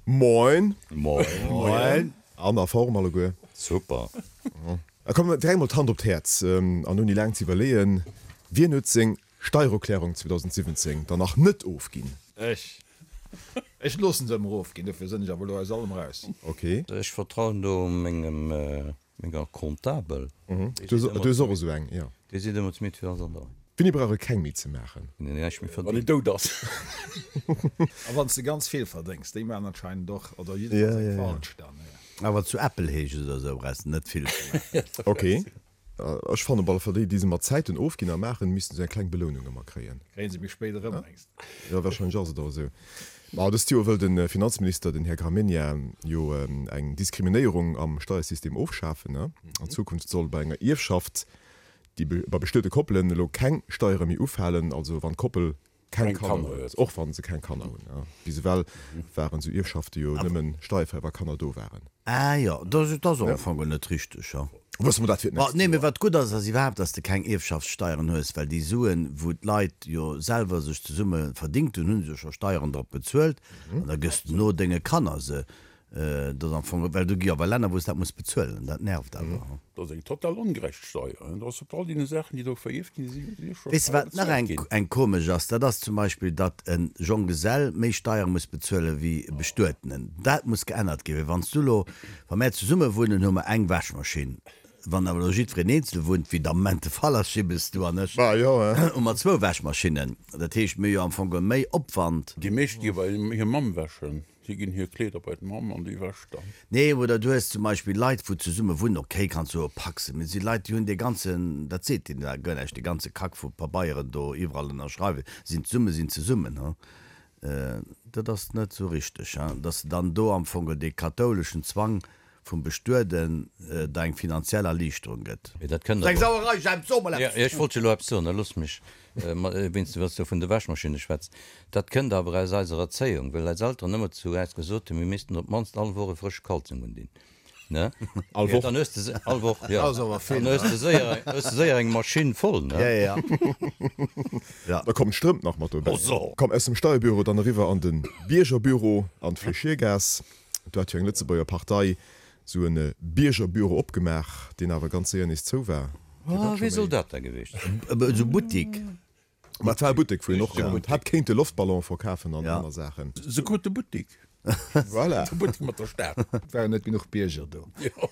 Moin! Moin! Moin! An a Form alleguer? Super! A komm, direkt mol d'Hand op d'Häerz, an ouni laang ze iwwerleeën, Wien huet seng Steiererklärung 2017 dann nach net ofginn? Ech. Ech loossen se ëmmer ofginn, dofir sënn ech awer elo aus allem raus. Ok. Ech vertrauen do mengem, menger Comptabel. Du hues och esou eng, jo. Déi seet ëmmer zu mir, et wier alles an der Rei. Wéini brauch e keng méi ze maachen? Wann een näischt méi Wann een verdéngt. dout ass. A wann s de ganz vill verdéngs, déi maachen anscheinend och, oder jiddefalls eng falsch dann. Awer zu Äppelheech oder esou brauchs de net vill ze maachen. Ok. Ech fannen op alle Fall, déi, déi se mat Zäiten ofginn a maachen, missten esou eng kleng Belounung ëmmer kréien. Kréien se méi spéit erëm, mengs de? Jo, wahrscheinlech ass et och esou. Ma dëst Joer wëll de Finanzminister, den Här Gramegna, jo eng Diskriminéierung am Steiersystem ofschafen. An Zukunft soll bei enger Ierfschaft, déi bei bestuete Koppelen elo keng Steiere méi ufalen, also wann d'Koppel keng Kanner huet, och wa se keng Kanner hunn. Bis ewell waren esou Ierfschafte jo nëmmen steierfräi, wa Kanner do waren. Ah jo, dat ass och am Fong net richteg, jo. Wësse mer dat fir d'nächst Nee, mee wat gutt ass, ass iwwerhaapt, dass de keng Ierfschaftssteieren hues, well déi Suen, wou d'Leit jo selwer sech zesumme verdingt hunn, hu se jo scho Steieren drop bezuelt an da gëss de no denge Kanner se. Dat ass am Fong, well do gi awer Länner, wou s dat muss bezuelen, dat nervt awer. Dat ass eng total ongerecht Steier. Dat ass op all deene Saachen, déi do verierft ginn, si jo scho Weess de Steier wat nach bezuelt eng ginn. eng komesch ass? Dat ass zum Beispill, datt e Jonggesell méi Steiere muss bezuele wéi e Bestuetenen. Dat muss geännert ginn, well wann s du elo, wa mär zesumme wunnen, hu mer eng Wäschmaschinn. Wann awer elo jiddwereen eenzel wunnt, wéi et am Moment de Fall ass, Jibbes, du an ech, hu mer zwou Wäschmaschinnen. Dat heescht, mir hu jo am Fong geholl méi Opwand. Déi meescht gi bei hir Mamm wäschen. Si ginn hir Kleeder bei d'Mamm an déi wäscht dann. Nee, oder du hues zum Beispill Leit, wou zesumme wunnen, okay, kanns soe Paxen, mee et si Leit, déi hunn dee ganzen, dat seet deen da guer näischt, dee ganze Kack vu Pabeieren do iwwerall ënnerschreiwen, sinn zesumme, sinn zesummen, he. Dat ass net esou richteg, he, dass de dann do am Fong dee kathouleschen Zwang vum Bestueden der eng finanziell Erliichterung gëtt. Mee dat kënnt Eng awer. Sauerei, Jemp, so mol Jo, eppes! ech wollt jo elo eppes soen, da looss mech, wéinst du, wann s du vun de Wäschmaschinne schwätz. Dat kënnt awer aus eiser Erzéiung, well eis Elteren ëmmer zu äis gesot hunn, mir missten op d'mannst all Woch e frësche Kalzong undinn, ne? All Woch? Dann hues de se, all Woch, jo. Dat ass awer vill, Dann hues ne? de séier, hues de séier eng Maschinn voll, ne? Ja, ja, ja. Da kommen d'Strëmp nach mat dobäi. Oh so! Komm, aus dem Steierbüro dann eriwwer an de Biergerbüro an d'Fléchiergaass. Do hat jo eng Lëtzebuerger Partei esou e Biergerbüro opgemaach, deen awer ganz séier nees zou war. Oh, wéi soll dat da gewiescht sinn? Esou Buttik. Ma et war e Buttek, wou een och hätt kéinte Loftballone verkafen an aner Saachen. Se krut de Buttik. Voilà. De Buttek mat der Stad. Et waren net genuch Bierger do. Jo.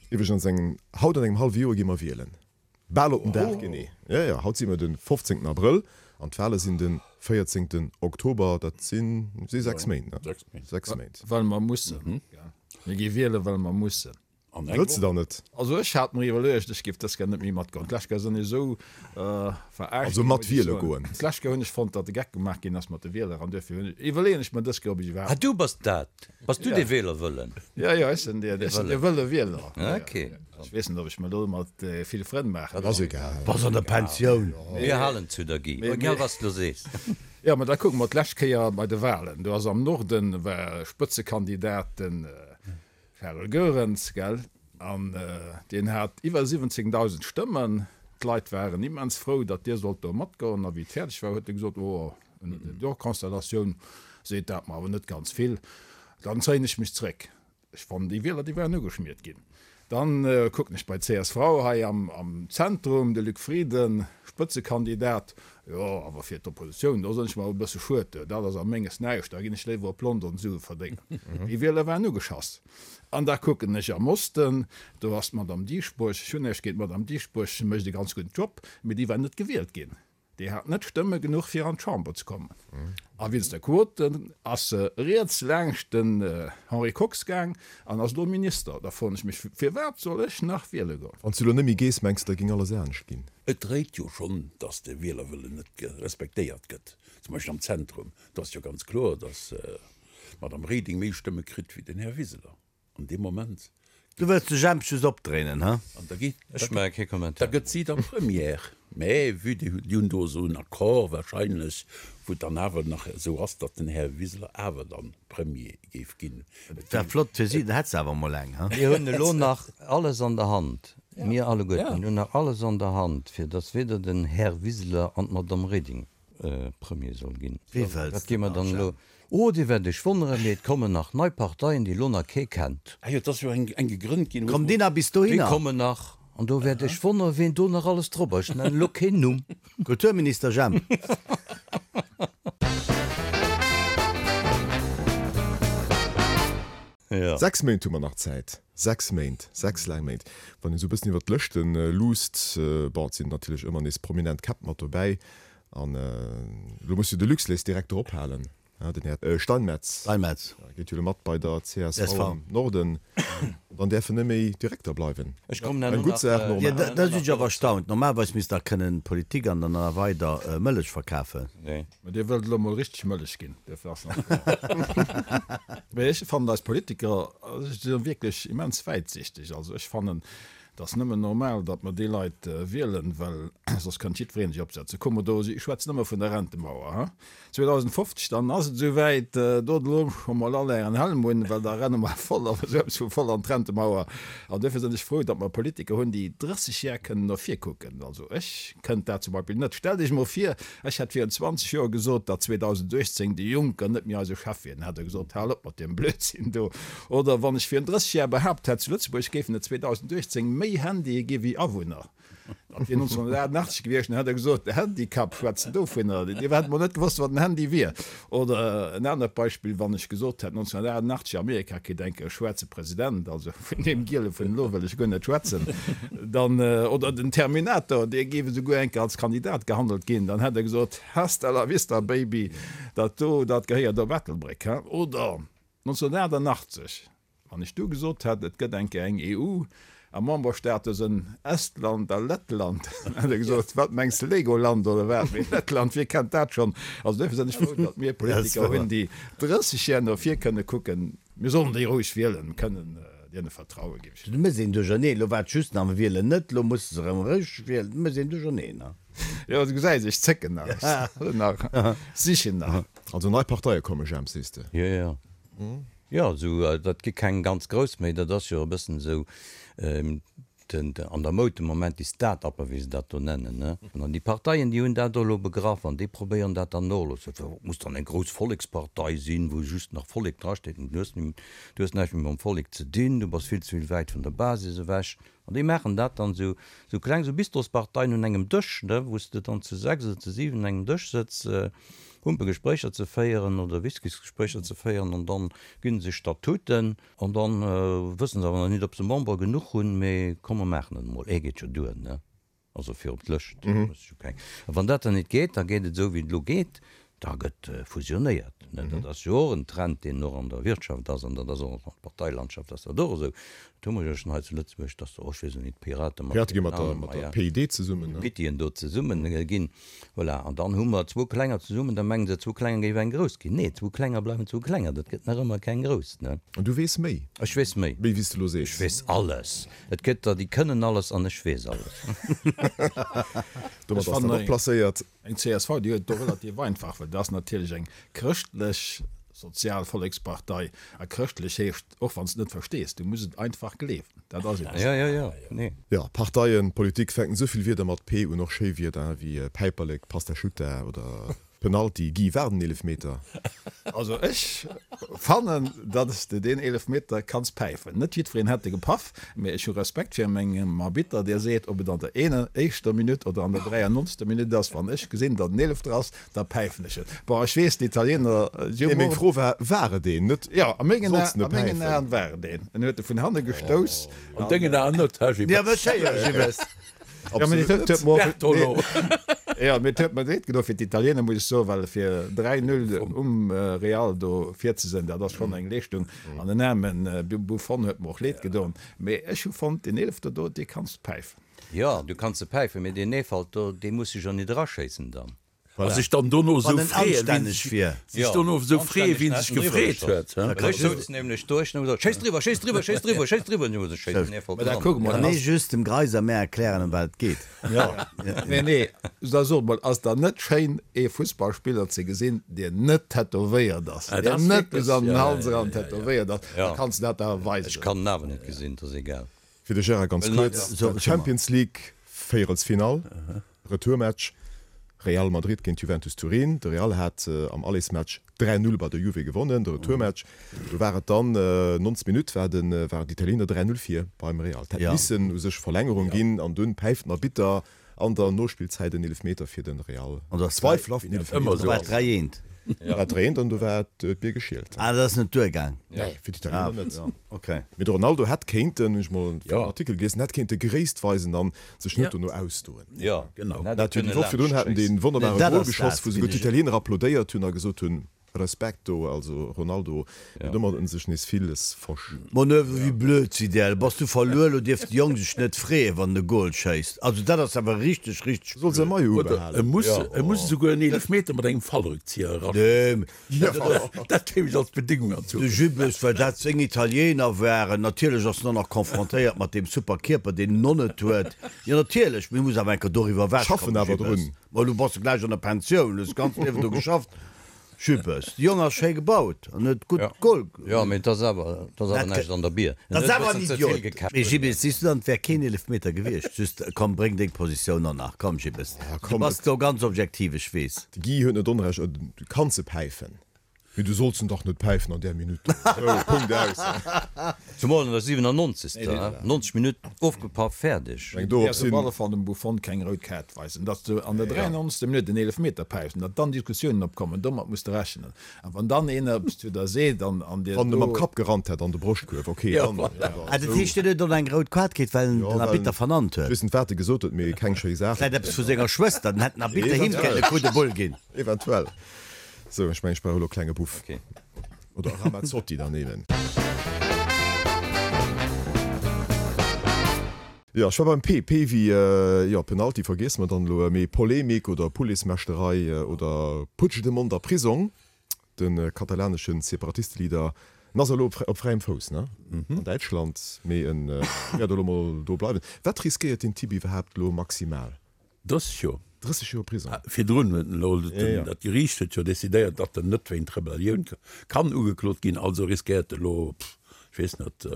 Iwwregens, eng, haut an engem hallwe Joer gi mer wielen. Bal op den Dag genee. Jo, jo, haut si mer de 15 Abrëll an d'Wale sinn de 14 Oktober. Dat si si 6 Méint, ne? 6 Méint. Well mer mussen. Mir gi wielen, well mer mussen. Wëlls de dann net? Also ech hat mer iwwerluecht, ech géif dës Kéier net méi matgoen. D'lescht Kéier sinn ech esou verarscht Also ginn, mat muss ech wiele soen. goen. D'lescht Kéier hunn ech fonnt, datt de Geck gemaach ginn ass mat de Wieler an dofir hunn ech, iwwerleeën ech mer dës Kéier, ob ech Ah, iwwerhaapt. du bass dat? Bass du dee Wählerwëllen? Jo, jo, ech sinn dee, ech sinn dee wëlle Wieler. Ok. Ech weess net, ob ech mer do mat vill Frënn maachen. Dat ass egal. Bass an der Pensioun. Mir halen zu der, Guy, egal wat s de lo sees. Jo, mä da kucke mer d'lescht Kéier bei de Wahlen. Do ass am Norden war Spëtzekandidat den Charel Goerens, gell? An deen hat iwwer 17.000 Stëmmen. D'Leit waren immens frou, datt dee sollt do matgoen. A wéi et fäerdeg war, huet e gesot, Oh, ënner der Konstellatioun seet dat mer awer net ganz vill, dann zéien ech mech zréck. Ech fannen, déi Wieler, déi waren ugeschmiert ginn. Dann kucken ech bei csv hei am Zentrum, de Luc Frieden, Spëtzekandidat, Jo, awer fir d'Oppositioun, do sinn ech mer awer e bësse schued, dat ass a menges näischt, da ginn ech léiwer op London Sue verdéngen. Déi Wieler waren ugeschass. An da kucken ech am Osten, do ass d'Madame Dieschbourg, ech hunn näischt géint d'Madame Dieschbourg, se mécht e ganz gudden Job, mee déi war net gewielt ginn. Déi hat net Stëmme genuch fir an d'Chamber ze kommen. A wéinst der Quote ass se riets laangscht den Henri Kox gaang an ass elo Minister. Da froen ech mech, firwat soll ech nach wiele goen? Wann s du elo net méi gees, mengs de, da géing alles anescht ginn? Et dréit jo schonn, datt de Wielerwëllen net respektéiert gëtt, zum Beispill am Zentrum. Do ass jo ganz kloer, datt d'Madame Reding méi Stëmme kritt wéi den Här Wiseler an deem Moment. Du wëlls de Jemp just opdréinen, he? An da geet, Ech maache kee da Kommentar. gëtt si da Première. Mä vue déi hunn do esou en Accord wahrscheinlech, wou et dann awer nach esou ass, datt den Här Wiseler awer dann Premier géif ginn. Et wär flott fir si, dann hätt se awer emol eng, he? Mir hunn elo nach alles an der Hand, mir alleguerten hunn nach alles an der Hand, fir datt weder den Här Wiseler an d'Madame Reding. Premier soll ginn. Wee wëlls Wat gi mer dann elo? Oh, Dir wäert Iech wonneren, mee et kommen nach nei Parteien, déi elo nach kee kennt. Ah jo, et ass jo eng gegrënnt ginn. Kommt déi nach bis dohinner? Déi kommen nach, an do wäert Iech wonneren, ween do nach alles drop ass. Ech nennen elo keen Numm. Kulturminister Jemp. Jo. 6 Méint hu mer nach Zäit. 6 Méint, 6 laang Méint. Wann een esou e bëssen iwwer d'Lëschte luusst, bon, et sinn natierlech ëmmer nees prominent Käpp mat dobäi. An elo muss jo de Luxlait direkt drop halen, den Här Steinmetz. Steinmetz. Geet jo elo mat bei der csv am Norden. Dann däerf en net méi Direkter bleiwen. Ech kommen herno Eng gutt nach. Saach, Jo, normal. da sinn ech awer erstaunt. Normalerweis misst der kënnen Politik an dann nach weider Mëllech verkafen. Nee. Mä Dir wëllt elo mol richteg Mëllech ginn, duerfir ass nach kloer. Mä ech fannen eis Politiker si wierklech immens wäitsichteg. Also ech fannen, et ass nëmmen normal, datt mer déi Leit wielen, well soss kënnt jiddweree sech opsetzen. Kuck mol do, ech schwätzen ëmmer vun der Rentemauer, ha. 2050, dann ass et esou wäit, dot elo scho mol all ären Helm un, well da renne mer voll, awer esou eppes vu voll an d'Rentemauer. An duerfir sinn ech frou, datt mer Politiker hunn, déi 30 Jar kënnen no vir kucken. Also ech kënnt dat zum Beispill net. Stellt Iech mol vir, ech hätt virun 20 Joer gesot, datt 2018 de Juncker net méi eise Chef wier. Dann hätt Der gesot, Hal op mat deem Blödsinn do. Oder wann ech virun 30 Jar behaapt hätt, zu Lëtzebuerg géifen et 2018 méi Handye gi wéi Awunner. Dat wier 1988 gewiescht, dann hätt e gesot, de Handicap, schwätzt en dovunner? Dir hätt mol net gewosst, wat en Handy wier. Oder en anert Beispill, wann ech gesot hätt, 1988, Amerika kritt eng Kéier e schwaarze President, also vun deem Giele vun elo wëll ech guer net schwätzen, dann, oder den Terminator, dee géif esouguer eng Kéier als Kandidat gehandelt ginn, dann hätt e gesot, Hasta la vista, Baby, dat do, dat gehéiert op Ettelbréck, he? Oder 1988, Wann ech du gesot hätt, et gëtt eng Kéier eng EU a Memberstaate sënn Estland a Lettland, dann hätt Der gesot, wat mengs de, Legoland oder wat? Mee Lettland, wie kennt dat schonn? Also duerfir sinn ech frou, datt mir Politiker hunn, déi 30 Jar no vir kënne kucken. Mir sollen déi roueg wielen, kënnen deene vertrauen, géif ech Du méchs een Duercherneen. Elo war et just nach, mir wielen net, elo musse se erëm eréischt wielen. Du méchs een Duercherneen, ne? Jo, du gesäis, ech zécken nach, ech nach, sichen nach. Also nei Parteie komme, Jemp, sees de? Jo, jo. Jo, esou, dat gi keng ganz grouss méi, dat ass jo e bëssen esou den, an der Moud de Moment, déi Start-uper, wéi se dat do nennen, ne. An déi Parteien, déi hunn dat elo begraff an déi probéieren dat dann och elo ze, et muss dann eng grouss Vollekspartei sinn, wou just nach Vollek drasteet. Du hues, du hues näischt méi mam Vollek ze dinn, du bass vill ze vill wäit vun der Basis ewech. An déi maachen dat dann esou, esou kleng, esou Bistrosparteien un engem Dësch, ne, wou s de dann zu 6 oder zu 7 un engem Dësch sëtz, Humpegespréicher ze féieren oder Whiskysgespréicher ze féieren an dann ginn se sech Statuten an dann wëssen se awer nach nit, ob se Member genuch hunn, mee komm mer maachen et emol, ee geet jo duer, ne, also fir op d'Lëscht, muss jo keng. A wann dat dann nit geet, da geet et esou wéi et elo geet, Da gëtt fusionéiert. Dat ass jo och en Trend, deen och an der Wirtschaft ass, an dat ass och an der Parteilandschaft ass dat och esou. Dat hu mer jo schonn hei zu Lëtzebuerg, dass och, ech weess elo nit, d'Pirate mat D'Pirate gi mat der, mat der PID zesummen, ne? Pittien do zesummen ginn. Voilà. An dann hu mer zwou Klenger zesummen, da mengen se, zwou Klenger géif eng grouss ginn. Nee, zwou Klenger bleiwen zwou Klenger, dat gëtt nach ëmmer keng grouss, ne? An du weess méi? Ech weess méi. Méi wéi s de elo sees? Ech weess alles. Et gëtt der, déi kënnen alles an ech weess alles. Domat ass dat och placéiert. Eng csv, déi huet et do relativ einfach, well dat ass natierlech eng chrëschtlech sozial Vollekspartei. A chrëschtlech heescht, och wann s de et net verstees, du muss et einfach gleewen. Dat ass eben esou. Jo, jo, nee. Jo, Parteien, Politik fänken esou vill Wierder mat P un, och schéi Wierder wéi Päiperlek, Pastasciutta oder Penalty. Guy, war et en Eelefmeter? Also ech fannen, datt s de deen Eelefmeter kanns päifen. Net jiddwereen hätt e gepaff, mee ech hu Respekt fir mengem Arbitter, dee seet, ob et an der eener éischter Minutt oder an der 93. Minutt ass, wann ech gesinn, datt en Eelefter ass, da päifen ech et. Bon, ech weess, d'Italiener si hu. Nee, meng Fro war, war et een? Net, Jo, a mengen Aen, a mengen Aen war et een. En huet e vun hanne gestouss. An dengen Aen net, hä, Gilles? Bertolo. Jo, mee et huet mer leed gedoen fir d'Italiener, muss ech soen, well fir 3, 0 um Real do vir ze sinn, dat ass schonn eng Leeschtung. An den aarme Buffon huet mer och leed gedoen. Mee ech hu fonnt, deen Eelefter do, dee kanns de päifen. Jo, du kanns e päifen, mee deen Eefalt do, dee muss sech jo nit eraschéissen dann. A sech dann dono esou Wann en freeën, wien anstänneg sech, wier. sech dono esou freeën, wien sech gefreet huet, hä? Ech souz nämlech do, ech hunn ëmmer gesot, Schéiss driwwer, schéiss driwwer, schéiss driwwer, schéiss driwwer, an ech hu gesot, schéiss den Eefalt Mä da dran. kucke mer, Kann ee just dem Greiser mär erklären, ëm wat et geet? Jo, nee, nee, da sot mol, ass dann net schéin, ee Fussballspiller ze gesinn, deen net tätowéiert ass, Ah, dat deen ass net wierklech, bis an den ja, Hals ja, eran ja, ja. tätowéiert ass? Da Ja. kanns de dat awer Ech weisen. kann en awer net gesinn, 't ass egal. Fir de Gérard ganz Well kuerz, So, Champions League Véierelsfinall, Retourmatch. Real Madrid géint Juventus Turin. De Real hat am Allersmatch 3, 0 bei der Juve gewonnen. De Retourmatch, do war et dann 90 Minutt war de waren d'Italiener 3, 0 vir beim Real. Et hätt missen u sech Verlängerung ginn an dunn päift den Arbitter an der Nospillzäit en Eelefmeter fir de Real. Zweifelhaften Eelefmeter. Do war et 3, 1. Do war et 3, 1 an do war d'Bier geschielt. Ah, dat ass net duergaang? Nee, fir d'Italiener net. Mee de Ronaldo hätt kéinten, hunn ech mol en Artikel gelies, en hätt kéinte Gréisst weisen an sech net dono ausdoen. Jo, genau. Dat jo déi Woch virdrun haten dee wonnerbare Gol geschoss, wou souguer d'Italiener applaudéiert hunn a gesot hunn, Respekt do, also Ronaldo, mee domat huet en sech nees villes versch. Manöver, wéi blöd si där? Bass du verluer, lo dierf de Jong sech net freeën, wann en e Gol schéisst. Also dat ass awer richteg, richteg Soll säi blöd. Maillot Oder ubehalen. e muss, e muss esouguer en Eelefmeter mat engem Fallrückzieher eraschéissen. Dat kéim ech als Bedingung an De Jubes, well dat seng Italiener waren. Natierlech ass en och nach confrontéiert mat deem super Kierper, deen en och net huet. Jo, natierlech, mee muss awer eng Kéier doriwwer ewech Schaffen kommen, awer Jubes. drun. Ma elo bass de gläich an der Pensioun, hues d'ganzt Liewen do geschafft. Jubes, de Jong ass schéi gebaut an huet gutt Goal. Jo, mee et ass awer, et ass awer näischt an der Bier. En Dat huet ass e awer en bëssen ze vill Idiot. gekäppt. Mee Jibes, siehs du dann, et wär keen Eelefmeter gewiescht. Just, komm, bréng deng Positioun och nach. Komm, Jibes, du bass do ganz objektiv, ech weess. De Guy huet net Onrecht, du kanns e päifen, mee du solls en dach net päifen an där Minutt do. Sou, Punkt, aus. Zumol an der 97. 90 Minutt, ofgepaff, fäerdeg. Eng dorop Däerfs op sinn. alle Fall dem Buffon keng rout Kaart weisen. Datt s du an der 93. Minutt en Eelefmeter päifs an datt dann Diskussiounen opkommen, domat muss de rechnen. A wann dann een eppes zu der seet an an dir Wann e mam do. Kapp gerannt hätt an de Broschtkuerf, ok, dann. Ah, dat heescht, hien huet och eng rout Kaart kritt, well en den Arbitter vernannt huet? Ech weess net, wat e gesot huet, mee keng schéi Saach. Vläit eppes vu senger Schwëster, dann hätt den Arbitter him kënnen e Coup de boule ginn. Eventuell. Sou, ech mengen, ech brauch elo e klenge Buff. Oder Ramazzotti dann eben. Jo, ech war beim P. P wéi, jo, Penalty vergiesse mer dann elo, mee Polemik oder Policemechterei oder Puigdemont a Prisong, de katalanesche Separatisteleader, en ass elo op fräiem Fouss, ne, an Däitschland, mee en wäert elo mol do bleiwen. Wat riskéiert deen Typ iwwerhaapt elo maximal? 30 Joer. 30 Joer Prisong. Virdrun huet en elo, dat Geriicht huet jo decidéiert, datt en net wéint Rebellioun kann ugeklot ginn, also riskéiert e elo, ech weess net,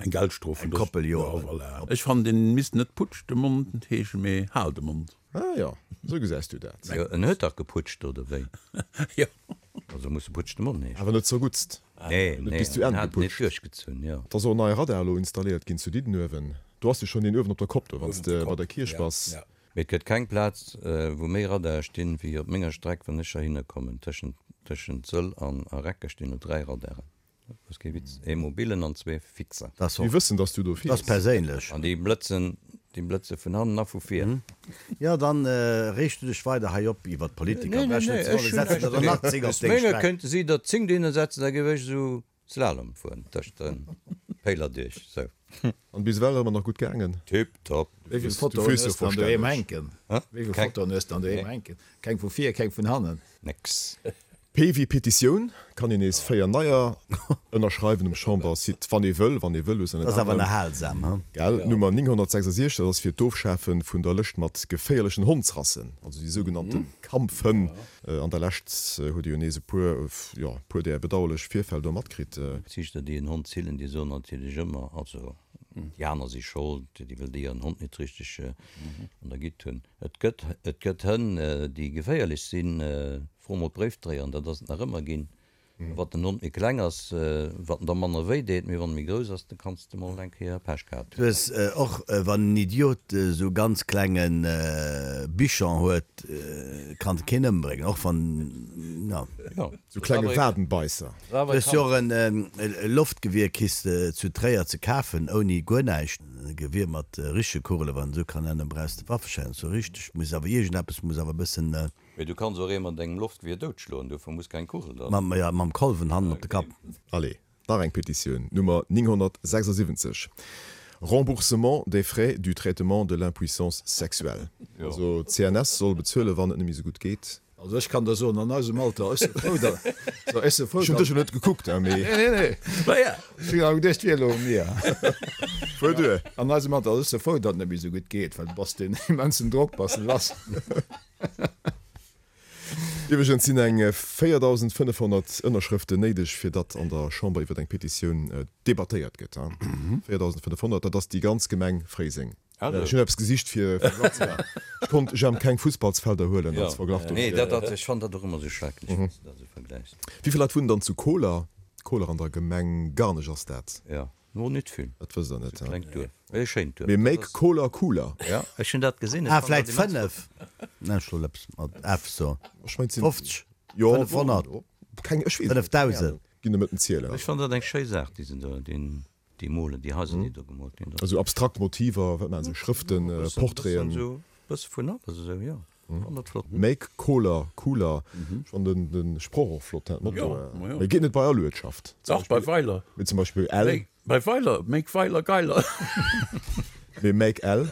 eng Geldstrof vun Eng Koppel Joer. Jo, voilà. Ech fannen, deen misst net Putsch de Mond heeschen, mee Hal de Mond. Ah jo, esou gesäis du dat. Jo, en huet dach geputscht, oder wéi? Jo. Also muss e Putsch de Mond heeschen. Awer net zerguttst. Nee, Net nee, bis zu en Enn hat et net geputscht. duerchgezunn, jo. Et ass och en neie Radar elo installéiert ginn zu Diddenuewen. Do ass jo schonn een uewen op der Kopp do, wann s de bei der Kierch bass. Mee et gëtt keng Plaz, wou méi Radare stinn, wéi op menger Streck, wann ech heihinner kommen. Tëschent, tëschent Sëll an a Recker stinn elo 3 Radaren. Dat ass kee Witz. Ee mobilen an zwee fixer. Dat ass Mir och, wëssen, dass du do dat ass fiers. perséinlech. An déi blëtzen, déi blëtze vun hannen a vu vir. Jo, dann reegst du dech weider hei op iwwert d'Politiker. Nee, nee, Brech nee, net ze ech wollen, hunn setzen näischt der der nach dogéint. 10 op Aus deng menger Streck. kéinte si der 10 dohinner setzen, da géif ech esou Slalom fueren tëscht de Péiler duerch, sou. An bis ewell ëmmer nach gutt gaangen? Tip top. Wéi vill Du Fotoen fiers jo hues de an doheem verstänneg. hänken? Wéi vill Keng. Fotoen hues de an doheem hänken? Keng vu vir, keng vun hannen? Nix. P wéi Petitioun, kann een nees 4 neier ënnerschreiwen um Chambersite, wann ee wëll, wann ee wëll, Dat ass awer erhalsam, he? Gell? Nummer 966, dat ass fir d'Ofschafe vun der Lëscht mat geféierlechen Hondsrassen, also déi sougenannte Kampfhënn. An der Lescht huet ee jo nees e puer, jo, e puer där bedauerlech Virfäll do matkritt. Ziichter, déi en Hond zillen, déi soen natierlech ëmmer, also déi aner si schold, déi wëll déi hiren Hond net richteg an der Gitt hunn. Et gëtt, et gëtt Hënn, déi geféierlech sinn. Fro mol d'Bréifdréier, an dat ass et nach ëmmer ginn. Wat den Hond méi kleng ass, wat en der manner wéi deet, mee wann e méi grouss ass, da kanns de mol eng Kéier Pech gehat Du hunn. hues och, wann en Idiot esou ganz klenge Bichon huet, kann e keen ëmbréngen, och wann, jo. Jo, Sou klenge Wadenbeisser. Du hues jo och e Loftgewier kriss de zu Tréier ze kafen, ouni guer näischt. E Gewier mat richtege Kugelen, wann een esou kann nennen, brauchs de Waffeschäin, sou richteg muss awer iergendeppes muss awer e bëssen. Mee du kanns och ee mat engem Loftgewier doutschloen, dofir muss keng Kugel dran. Mam, jo, mam Kolwen hannen op de Kapp. Allez, nach eng Petitioun, Nummer 976, Remboursement des frais du traitement de l'impuissance sexuelle. Also d'CNS soll bezuelen, wann et net méi sou gutt geet. Also ech kann der soen, an eisem Alter, ech si frou, datt, so, ech si frou, Ech hunn dech jo net gekuckt, hein, mee. Nee, nee, nee. Naja. Ech hunn awer geduecht, et wier elo u mir. Fuer duer. An eisem Alter, ech si frou, datt et net méi esou gutt geet, well du bass deen immensen Drock bass de lass. Iwwregens sinn eng 4.500 Ënnerschrëften néideg, fir datt an der Chamber iwwer eng Petitioun debattéiert gëtt. 4.500, dat ass déi ganz Gemeng Fréiseng. Ech hunn eppes gesicht fir Verglach ze maachen. Ech konnt jam keng Fussballsfelder huelen als Verglach dofir. Nee, dat, dat, ech fannen dat och ëmmer esou schrecklech, wann s de dat esou vergläichs. Wéi vill Leit wunnen dann zu Koler? Koler an der Gemeng Garnech ass dat. Jo, no net vill. Dat wësst der net, he? Klengt Duerf, e schéint Duerf. Mee make Koler cooler. Jo, ech hunn dat gesinn. Ah, vläit 5? Ech soll eppes mat F soen. Ech mengt sinn. 50? Jo, 500? Keng, ech weess et net. 5000? Ginn der met den Zielen. Ech fannen dat eng schéi Saach, déi se do, deen. Déi molen, déi Haiser, déi do gemoolt ginn. Esou abstrakt Motiver, wat maachen se, Schrëften, Portraiten? Esou e bësse vun alles, esou, jo. Fannen dat flott. Make Koler cooler. Ech fannen den den Sproch och flott, dat Motto. Mee geet net bei all Uertschaft. Dach, bei Weiler. Mee zum Beispill Ell. Bei Weiler, Make Weiler geiler. Mee Make Ell.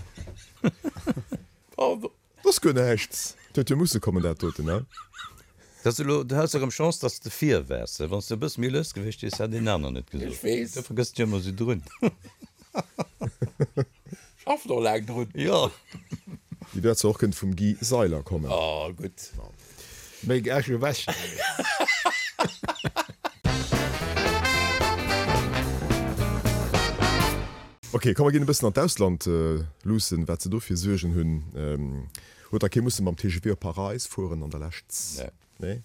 Pardon. Dat ass guer näischt. Dat huet jo musse kommen, dat doten, ne? Dat ass elo, du has erëm Chance, dass de vir waars. Wann s de e bësse méi lues gewiescht wiers, hätt een aner net gesot. Ech weess. Du vergëss dech ëmmer esou drun. Schaffen och laang drun. Jo. Déi wäert zwar och kënnt vum Guy Seiler kommen. Oh, gutt. Méi Äsch ewech. Ok, komm mer ginn e bëssen an d'Ausland luussen, wat se do fir Suergen hunn. Huet da kee musse mam TGV op Paräis fueren an der Lescht? Nee.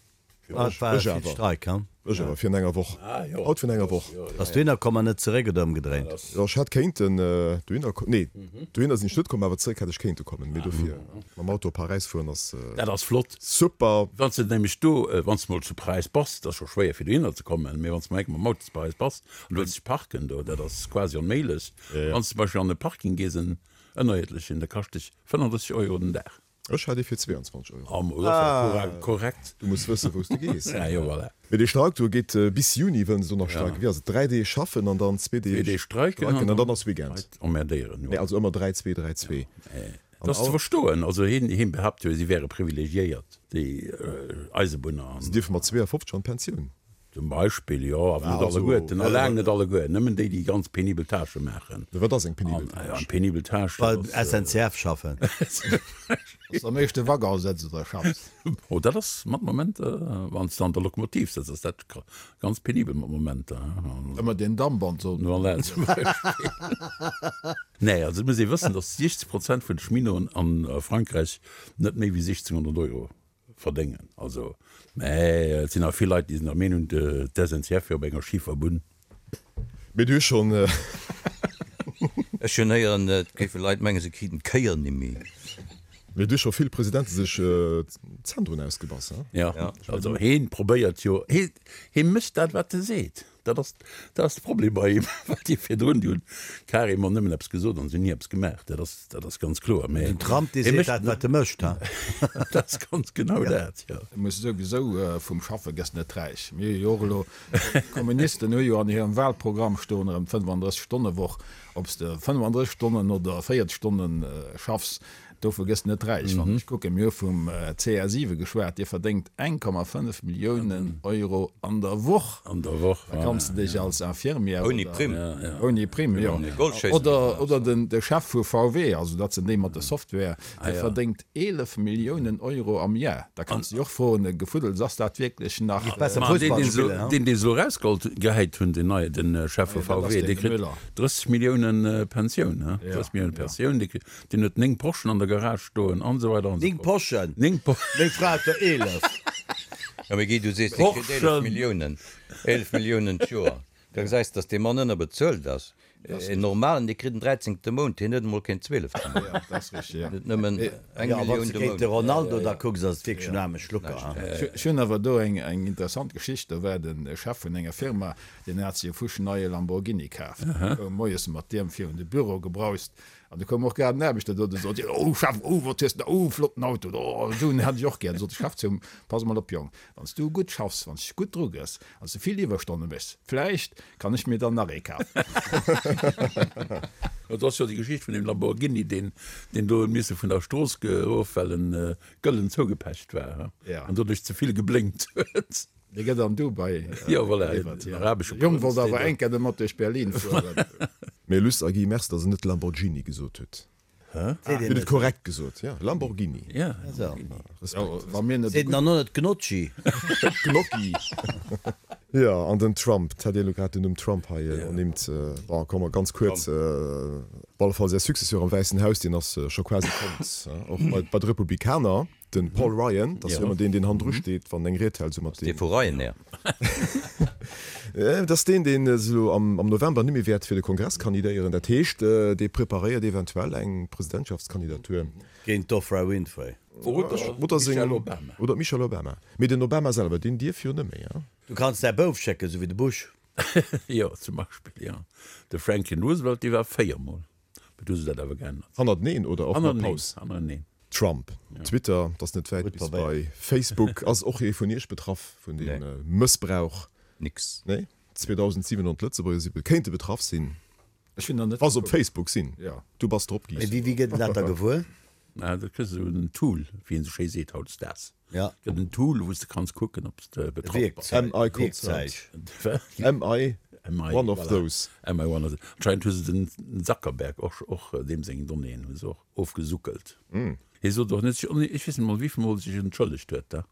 Ah, et war Ech vill awer. Streik, ha? Ech awer, virun enger Woch. Haut virun enger Woch. Bass dohinner komm an net zeréck oder ëmgedréint? Jo, ech hätt kéinten dohinner ko-, nee, dohinner sinn ech net komm, awer zeréck hätt ech kéinte kommen. Mee dofir mam Auto op Paräis fueren ass. Dat ass flott. Super! Wann s de nämlech do, wann s de mol zu Paräis bass, dat ass scho schwéier fir dohinner ze kommen, mee wann s de mol eng Kéier mam Auto zu Paräis bass, An du wëlls dech parken do, dat ass quasi onméiglech. Wann s de zum Beispill an e Parking gees, en ënnerierdlechen, da kascht dech 35 Euro den Dag. Ech hat ee fir 22 Euro. Ah, ma dat ass ja korrekt. Du muss wëssen, wou s de gees. Ja, jo, voilà. Mee dee Streik do geet bis Juni, wëllen se do nach streiken. Wéi ass et? 3 Deeg schaffen an dann zwee Deeg streiken an dann ass Weekend. Leit emmerdéieren, jo. Nee, also ëmmer 3, 2, 3, 2. Dat ass ze verstoen. Also hien, hien behaapt jo, si wäre privilegiéiert, déi Eisebunner. Se dierfe mat 52 an d'Pensioun. Zum Beispill, jo, awer net alleguerten, a laang net alleguer, nëmmen déi, déi ganz penibel Tâchë maachen. Wat ass eng penibel Tâche? Eng penibel Tâche, dat ass. Bei SNCF schaffen. Dass de am éischte Waggon sëtz oder schaffs. Oh, dat ass mat Momenter, wann s de an der Lokomotiv sëtz, ass dat ganz penibel mat Momenter. Ëmmer deen Damp an d'Sonn. Voilà, zum Beispill. Nee, also et muss ee wëssen, datt 60 Prozent vun de Cheminoten a Frankräich net méi wéi 1.600 Euro Verdéngen. Also, mä et sinn awer vill Leit, déi sinn der Meenung, d'SNCF wier op enger schifer Bunn. Mee du hues schonn. Ech hunn héieren, et géife Leit mengen, se kriten d'Kéier nimmi. Mee du hues scho vill Presidente sech d'Zänn drun ausgebass, he? Jo, also heen probéiert jo, hee mécht dat, wat e seet. Dat ass, dat ass de Problem bei him, well déi virdrun, déi hunn carrément nëmmen eppes gesot an se hunn ni eppes gemaach. Dat ass, dat ass ganz kloer. Mä Den Trump, dee seet dat, wat e mécht, ha? Dat ass ganz genau dat, jo. Du muss souwisou vum Schaffe gëss net räich. Mir hu jo och elo, d'Kommunisten hu jo an hirem Wahlprogramm stoen erëm d' 35 Stonne Woch. Ob s de 35 Stonnen oder 40 Stonnen schaffs, Dovu gëss net räich. Wann ech kucken, mir hu vum CR7 geschwat, dee verdéngt 1,5 Milliounen Euro an der Woch. An der Woch, Da kanns de dech als Infirmière Ouni Primm. Ouni Primm, jo. Oder, oder den, de Chef vu VW, also dat sinn déi mat der Software, dee verdéngt 11 Milliounen Euro am Jar. Da kanns de dech och froen, Gefuddels, ass dat wierklech nach. Besser Fussball spillen, ha? Deen, deen se elo erausgeholl, gehäit hunn, deen neie, den Chef vu VW, dee kritt 30 Milliounen Pensioun, ha? 30 Milliounen Pensioun, dee kritt. Deen huet 9 Porschen an der Garage stoen an esou weider an esou 9 Porschen? 9 Porschen. Meng Fra huet der 11. Jo, mee Guy, du sees, dee kritt 11 Milliounen, 11 Milliounen d'Joer. Da gesäis de, datt dee Mann ënnerbezuelt ass. En Normalen, dee kritt en dräizéngte Mount, hien huet emol keen zwielefte Mount. Jo, dat ass richteg, jo. Hien huet nëmmen eng Jo, a wann Millioun s de de géint Mount. de Ronaldo da kucks, ass et wierklech en aarme Schlucker, ha? Ech hunn awer do eng interessant Geschicht. Do war de Chef vun enger Firma, deen hat sech e fuschneie Lamborghini kaaft. Koum moies mat deem virun de Büro gebraust An du koum och grad en Aarbechter do, de sot, Oh Chef, oh wat hues de, oh flotten Auto, oh esou en hätt ech och gär. Du sot de Chef zu him, Pass emol op Jong, wann s du gutt schaffs, wann s dech gutt drugëss, wann s du vill Iwwerstonne méchs, vläicht kann ech mir dann nach ee kafen. Et ass jo déi Geschicht vun deem Lamborghini, deen deen do huet misse vun der Strooss geruff, well en gëllen zougepecht war an doduerch ze vill geblénkt huet. Dee gëtt an Dubai Jo, voilà, geliwwert, den arabesche De Jong Prënz, wollt deen awer do. eng Kéier domat duerch Berlin fueren. Mee Luss a Guy, merci, dass Der net Lamborghini gesot hutt. Seet Dir een hutt et net. korrekt gesot, jo, Lamborghini. Ja, Also. Respekt. Wa mir net Seet en dann och net Gnocchi? Gnocchi. Jo, an den Trump, 't hat Dir elo grad den Numm Trump hei ernimmt. Bon, komme mer ganz kuerz, op alle Fall säi Successeur am Wäissen Haus, deen ass scho quasi fonnt, och bei de Republikaner, de Paul Ryan, dat ass jo ëmmer deen, deen hannendru steet, wann en eng Ried hält, esou mat deem. Dee vu Ryanair. Dat ass deen, deen elo am November net méi wäert fir de Kongress kandidéieren. Dat heescht, dee preparéiert eventuell eng Presidentschaftskandidatur. Géint d'Oprah Winfrey. Oder seng, oder d'Michelle Obama. Mee den Obama selwer, deen dierf jo net méi, hein? Du kanns däi Bouf schécken, sou wéi de Bush. Jo, zum Beispill, jo. De Franklin Roosevelt, dee war véiermol. Mee du hu se dat awer geännert. Hannerteneen oder och mat Paus? Hannerteneen. Trump, Twitter, 't ass net wäit bis bei Facebook. Ass och ee vun iech betraff vun deem Mëssbrauch? Nix. Nee? 2.700 Lëtzebuerger si kéinte betraff sinn. Ech sinn nach net Wa se op Facebook sinn. Jo. Du bass drop, Guy. Mee wéi gëtt een dat da gewuer? Ah, dat kriss de esou en Tool, wéi een esou schéi seet hautdesdaags. Ja. Gëtt en Tool, wou s de kanns kucken, ob s de betraff bass. Am I concerned? Wat? Am I Am I, one of voilà. those? Am I one of those? Anscheinend hu se den Zuckerberg och, och deem seng Donnéeën hu se och ofgesuckelt. Hie sot och net, ech weess net mol, wéivill Mol sech entschëllegt huet da.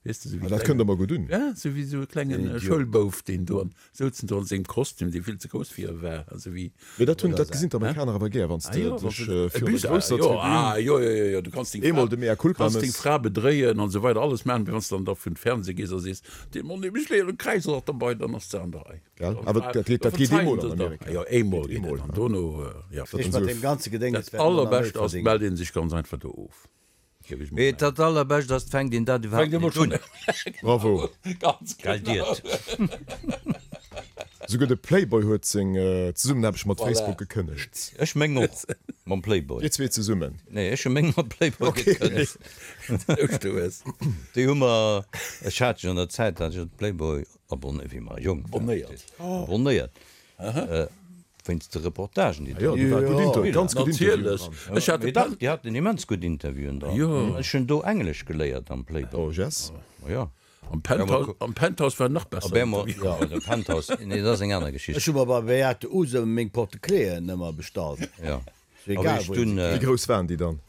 Weess de, sou wéi Ah, dat kënnt der mer gutt un. Ja, sou wéi sou e klenge Schoulbouf, deen do an souzen do an sengem Kostüm, dee vill ze grouss fir e war, a sou wéi. Mee dat hunn, dat gesinn d'Amerikaner awer gär, wann s de dech virun der grousser Tribün. Ah jo, jo, jo, jo, du kanns deng Eemol de Mea culpa kanns deng mëss. Fra bedréien an esou weider, alles maachen, mee wann s de dann da vun Fernseh gees a sees, dee Mann, dee mech leere Kräiz ass och derbei, dann ass de an der Rei. Gell? Awer dat geet, dat geet eemol an Amerika. Jo, eemol geet et an dono, jo. Ech mat deem ganze Gedénges Dat wäert elo nach méi allerbescht ass, et mellt ee sech ganz einfach do of. Mee dat allerbescht ass, 't fänkt een dat iwwerhaapt net un. Bravo! Gell Diet? Souguer de Playboy huet seng Zesummenaarbecht mat Facebook gekënnegt. Ech meng och mam Playboy. Dir zwee zesummen? Nee, ech hu meng mam Playboy gekënnegt. Déi hu mer, ech hat jo an der Zäit, hat ech de Playboy abonnéiert, wéi mer jonk waren. Abonnéiert. Wéinst de Reportagen, déi do Natierlech. Ech hat Mee dach, déi haten immens gutt Interviewen dran. Ech hunn do Englesch geléiert am Playboy. Oh yes. Ma jo. Am Penthouse, am Penthouse war nach besser. Jo, de Penthouse, nee, dat ass eng aner Geschicht. Ech hu mer bei Beate Uhse meng Porte-cléen ëmmer bestallt. Jo. Egal wou een se Wéi grouss waren déi dann?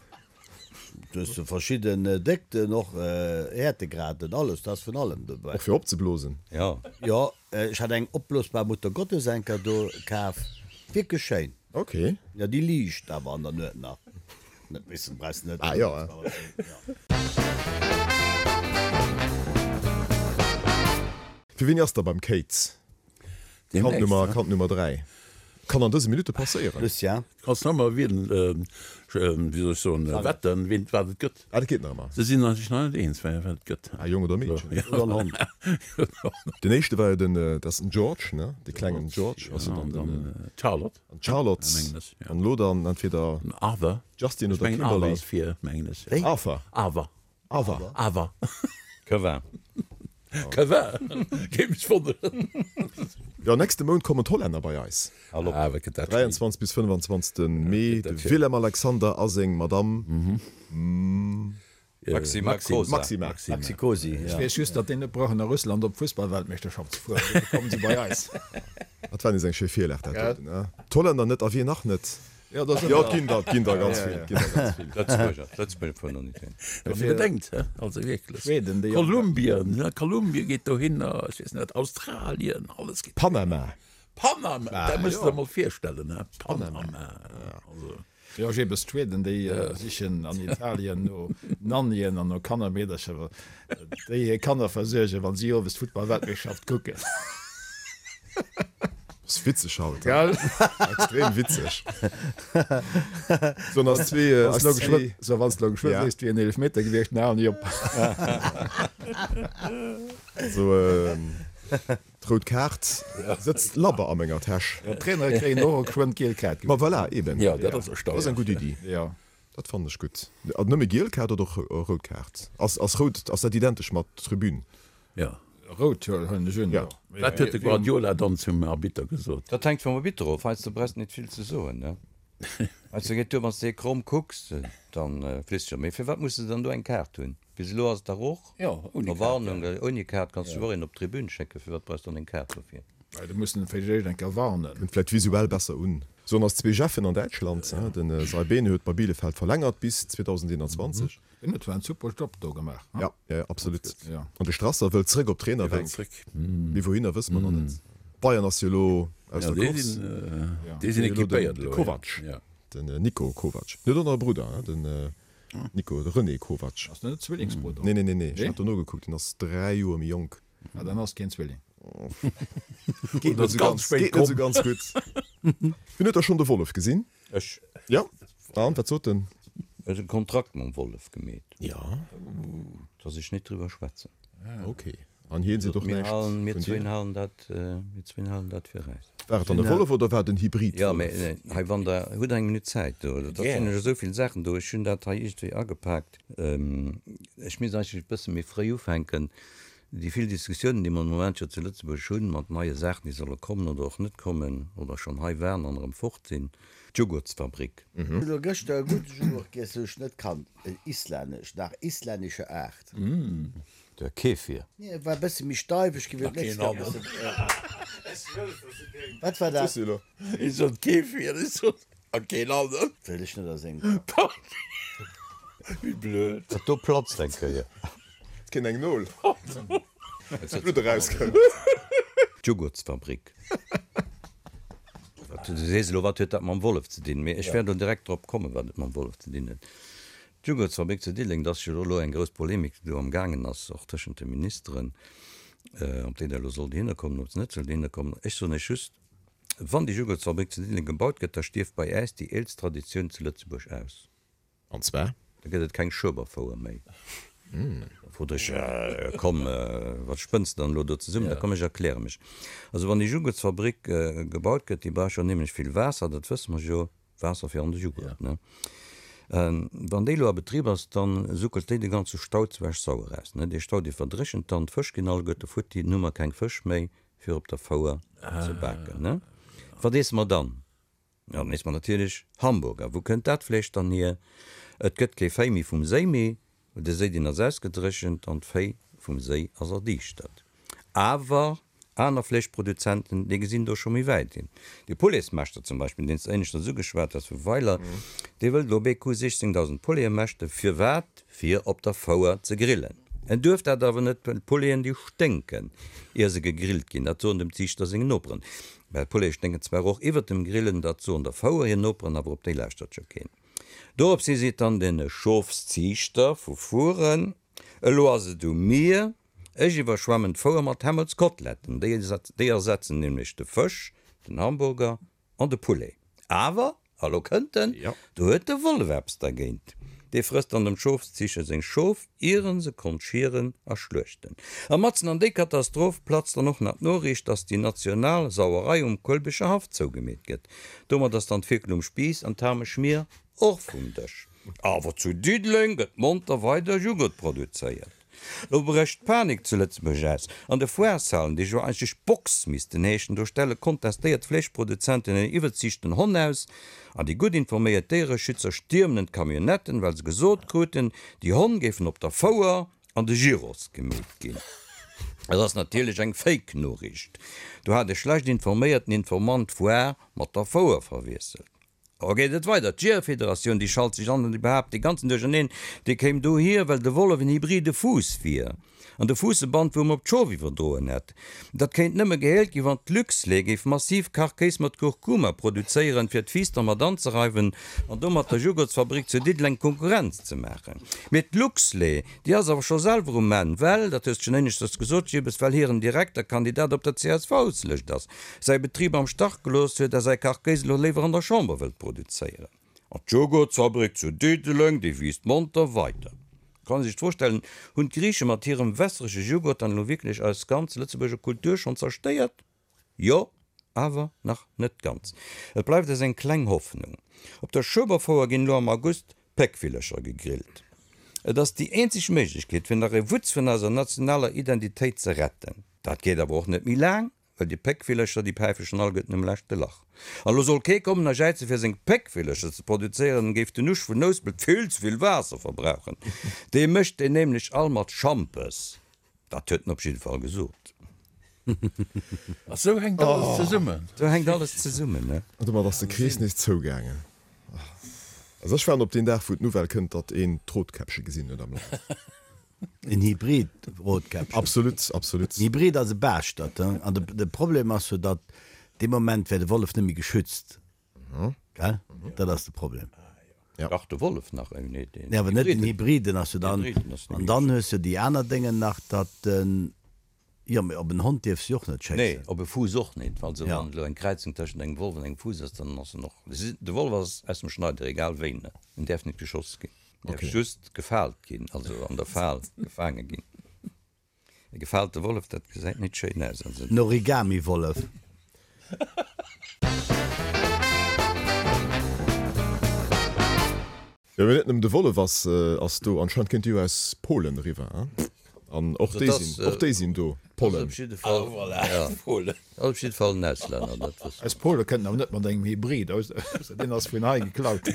Du hues verschidden Déckten, och Häertegraden, alles, do ass vun allem dobäi. Och fir opzeblosen? Jo. Jo, ech hat eng opblosbar Muttergottesenker do kaf, wierklech schéin. Ok. Jo, déi liicht awer an der Nuet nach. Net missen, brauchs net. Ah jo. Fir wéini ass da beim Kate? Kand Nummer, Kand Nummer 3 kann an dëse Minutte passéieren. Lucien. Kanns nach ëmmer wielen, wéi soll ech soen, wetten, ween wat et gëtt. Ah, dat geet nach ëmmer. Se sinn sech nach net eens, wat et gëtt. Ah, Jong oder Meedchen. Oder en Hond. Den éischte war jo den, dat ass den George, ne? De klengen George ass jo dann den. D'Charlotte. An d'Charlotte. Mengen ech, jo. An elo dann entweder. Den Arthur. Justin Ech oder mengen Arthur Kimberly. ass vir, mengen ech. Wéi? Arthur. Arthur. Awer. Awer. Kevin. Kevin. Géif mech wonneren. Jo, nächste Mount kommen d'Hollänner bei eis. Hallo. Ah, wat gëtt dat schéin. 23 bis 25 Mee, de Willem Alexander a seng Madamm Maxima Cosa. Maxima. Maxi Cosi, Ech ja. weess just, datt déi net brauchen a Russland op d'Fussballweltmeeschterschaft ze fueren, dofir kommen se bei eis. Dat war nees eng schéi Virlag, dat doten, ne? D'Hollänner net a wien nach net? Jo, dat Jo, et ginn der, et ginn der ganz vill, et ginn der ganz vill. Lëtzebuerger, d'Lëtzebuerger fueren och net hin. Wann ee bedenkt, hä? Also wierklech. Schweden, déi. Kolumbien, ja, Kolumbien geet dohinner, ech weess net, Australien, alles geet. Panama. Panama, dat muss de der mol virstellen, hä? Panama, also. Jo, jeebes d'Schweden, déi sichen an Italien no Nannien an no Kannermeedercher, déi hir Kanner versuergen, wann si owes d'Futtballweltmeeschterschaft kucken. Ass witzeg haut, Gell? Extrem witzeg. So, an ass zwee, ass zwee. So, wann s de elo geschwë Ja. sees, et wier en Eelefmeter gewiescht, dann halen déi op. Also, d'rout Kaart sëtzt labber a menger Täsch. Jo, d'Trainere kréien och geschwënn d'giel Kaart. Ma voilà, eben. Jo, dat ass Dat ass erstaunlech. eng gutt Iddi. Jo. Dat fannen ech gutt. Nëmme giel Kaart oder och rout Kaart? Ass, ass rout, ass dat identesch mat Tribün? Jo. Rout huelen ech un, jo. Wat huet de Guardiola dann zum Arbitter gesot? Dat hänkt vum Arbitter of. Heiansdo brauchs de net vill ze soen, ne? Heiansdo geet duer, wann s de hie kromm kucks, dann fliss de scho. Mee firwat muss de dann do eng Kaart hunn? Bis elo ass et dach och Jo, ouni Kaart, Verwarnung. Ouni Kaart kanns du och een op d'Tribün schécken. Firwat brauchs de dann eng Kaart dofir? Well do mussen se vläicht eng Kéier warnen. Kënnt vläicht visuell besser un. Sou an ass Zweejeffen an Däitschland. Den Saibene huet bei Bielefeld verlängert bis 2021. Deen huet zwar en super Job do gemaach. Ja, ja, absolut. An de Strasser wëllt zréck op d'Trainerbänk. Mee wouhinner wësse mer nach net. Bayern ass jo elo aus der Course. Déi sinn equipéiert elo. De Kovac, den Niko Kovac. Huet och nach e Brudder, den Nico, de René Kovac. Ass dat net Zwillingsbrudder? Nee, nee, nee, nee, ech hat do nogekuckt, deen ass 3 Joer méi jonk. Ah, dann ass keen Zwilling. Geet net esou ganz gutt. Wien huet da schonn de Wollef gesinn? Ech. Jo, an wat sot en? Ech hunn e Kontrakt mam Wollef gemeet. Jo. Dass ech net driwwer schwätzen. Ok. An hien seet och näischt vun dir? Mir zwéin halen dat, mir zwéin halen dat fir äis. War et dann e Wollef oder war et en Hybrid-Wollef? Jo, mee hei, wann Der hutt eng Minutt Zäit do, da sinn ech esou vill Saachen do. Ech hunn dat hei iergendwéi agepaakt. Ech misst eigentlech e bësse méi fréi ufänken. Déi vill Diskussiounen, déi mer de Moment jo zu Lëtzebuerg hunn, mat neie Saachen, déi solle kommen oder och net kommen oder schonn hei waren an erëm fort sinn, d'Jugurtsfabrik. Hunn elo gëschter e gudde Jughurt giess, wou ech net kannt, en islännesch, nach islännescher Aart. De Kefir. Nee, e war e bësse méi steif, ech géif et net Wat war dat? Ech sot Kefir, ech sot a keen aneren. Wëll ech net a sengem Kapp. Wéi blöd. Dat do platzt eng Kéier. Et kéint eng Nol. Blutt erauskënnt. D'Jugurtsfabrik. Du sees elo, wat huet dat mam Wollef ze dinn? Mee ech wäert elo direkt drop kommen, wat et mam Wollef ze dinn huet. D'Jugurtsfabrik zu Diddeleng, dat ass jo elo eng grouss Polemik, déi do am gaangen ass, och tëschent de Ministeren, ob déi da elo soll dohinner kommen, ob se net soll dohinner kommen. Ech soen Iech just, Wann déi Jugurtsfabrik zu Diddeleng gebaut gëtt, da stierft bei äis déi eelst Traditioun zu Lëtzebuerg aus. An zwar? Da gëtt et keng Schueberfouer méi. Da frot ech, Komm, wat spënns de dann elo do zesummen? Da komm, ech erkläre mech. Also wann déi Jugurtsfabrik gebaut gëtt, déi brauch jo onheemlech vill Waasser, dat wësse mer jo, Waasser fir an de Jughurt, ne? Wann déi elo a Betrib ass, da suckelt déi de ganze Stau zu Esch-Sauer aus, ne? Dee Stau, dee verdréchent dann, d'Fësch ginn alleguerte futti, dann hu mer keng Fësch méi, fir op der Fouer ze baken, ne? Wat iesse mer dann? Jo, dann iesse mer natierlech Hamburger. Wou kënnt dat Fleesch dann hier? Et gëtt kee Véi méi vum Séi méi, well de Séi, deen ass ausgedréchent an d'Véi vum Séi ass erdiischtert. Awer aner Fleeschproduzenten, déi gesinn do scho méi wäit hin. De Pouletsmeschter zum Beispill, deen s de éineschters ugeschwat has vu Weiler, dee wëllt elo BQ 16.000 Poulete mäschten. Firwat? Fir op der Fouer ze grillen. En duerf dat awer net, well d'Pouleten déi sténken, ier se gegrillt ginn. Dat soen dem Ziichter seng Noperen. Well d'Poulete sténken zwar och iwwert dem Grillen, dat soen der Fouer hir Noperen, awer op déi lauschtert jo keen. Doropshi seet dann den Schofsziichter vu Furen, Elo ass et u mir, ech iwwerschwemmen d'Fouer mat Hämmelskoteletten. Déi ersetzen nämlech de Fësch, den Hamburger An de Poulet. Awer, a lo kënnt en, do huet de Wollef eppes dergéint. Dee frësst dann dem Schofsziicher seng Schof, ier en se konnt schieren a schluechten. A matzen an déi Katastroph platzt dann och nach d'Noriicht, dass déi national Sauerei um Kuelbecher Haff zougemeet gëtt. Domat ass dann d'Fierkel um Spiiss an d'Hameschmier och vum Dësch. Awer zu Diddeleng gëtt monter weider Jughurt produzéiert. Lo brécht d'Panik zu Lëtzebuerg aus. An de Foireshalen, déi jo eigentlech Box missten heeschen, do stelle kontestéiert Fleeschproduzenten en iwwerziichten Honn aus. An déi gutt informéiert Déiereschützer stiermen en d'Camionnetten, well se gesot kruten, déi Honn géifen op der Fouer an de Gyros gemeet ginn. Et ass natierlech eng Fake-Noriicht. Do hat e schlecht informéierten Informant d'Foire mat der Fouer verwiesselt. A geet et weider, d'Jeeërfederatioun, déi schalt sech an an déi behaapt dee ganzen Duercherneen, dee kéim dohier, well de Wollef en hybride Fuuss wier an de Fuuss e Bandwuerm op d'Schof iwwerdroen hätt. Dat kéint nëmme geheelt ginn, wann d'Luxlait géif massiv Kachkéis mat Kurkuma produzéieren, fir d'Fiiss dermat anzereiwen an domat der Jugurtsfabrik zu Diddeleng Konkurrenz ze maachen. Mee d'Luxlait, déi ass awer scho selwer um Enn, well, dat hues de schonn éineschters gesot, Jibbes, well hiren Direkter-Kandidat op der CSV-Lëscht ass. säi Betrib am Stach gelooss huet a säi Kachkéis elo léiwer an der Chamber wëllt produzéieren. An d'Joghurtsfabrik zu Diddeleng, déi wiisst monter weider. Kann ee sech d'Fro stellen, Hunn d'Griiche mat hirem wässerege Joghurt dann elo wierklech eis ganz Lëtzebuerger Kultur schonn zerstéiert? Jo, awer nach net ganz. Et bleift eis eng kleng Hoffnung. Op der Schueberfouer ginn elo am August Péckvillercher gegrillt. Et ass déi eenzeg Méiglechkeet, fir nach e Wutz vun eiser nationaler Identitéit ze retten. Dat geet awer och net méi laang, well déi Péckvillercher, déi päife schon alleguerten um leschte Lach. An elo soll kee kommen a jäize fir seng Péckvillercher ze produzéieren, géif den Usch vun Nouspelt vill ze vill Waasser verbrauchen. Dee mécht déi nämlech all mat Schampes. Dat huet en op jidde Fall gesot. A sou hänkt alles zesummen. Sou hänkt alles zesummen, ne? An domat ass de Krees nees zougaangen. Also ech waarden op deen Dag, wou d'Nouvelle kënnt, datt een d'Rotkäppche gesinn huet am Land. En Hybrid-Rotkäppchen. Absolut, absolut. En Hybrid ass e Baaschtert, he? An de Problem ass jo, datt dee Moment wär de Wollef net méi geschützt, gell? Dat ass de Problem. Dach, de Wollef nach, nee, nee, awer net den Hybrid, den ass jo dann. An dann hues jo déi aner Déngen nach, datt den. Jo, mee op en Hond dierfs de jo och net schéissen. Nee, op e Fuuss och net. Also wann elo eng Kräizung tëschent engem Wollef an engem Fuuss ass, dann ass en och, de Wollef ass aus dem Schneider, egal wéi, ne? En däerf net geschoss ginn. En däerf just gefaalt ginn, also an der Fal gefaange ginn. E gefaalte Wollef, dat gesäit net schéin aus. Also. En Origami-Wollef. Jo, mee net nëmmen de Wollef ass ass do, anscheinend kënnt déi jo aus Polen eriwwer, hein? An och déi sinn, och déi sinn do, d'Pollen. Ass op jidde Fall, ja, ass op jidde Fall en Auslänner, dat wësse mer. Aus Pole kënnt en awer net mat engem Hybrid, ausser deen ass vun hei geklaut.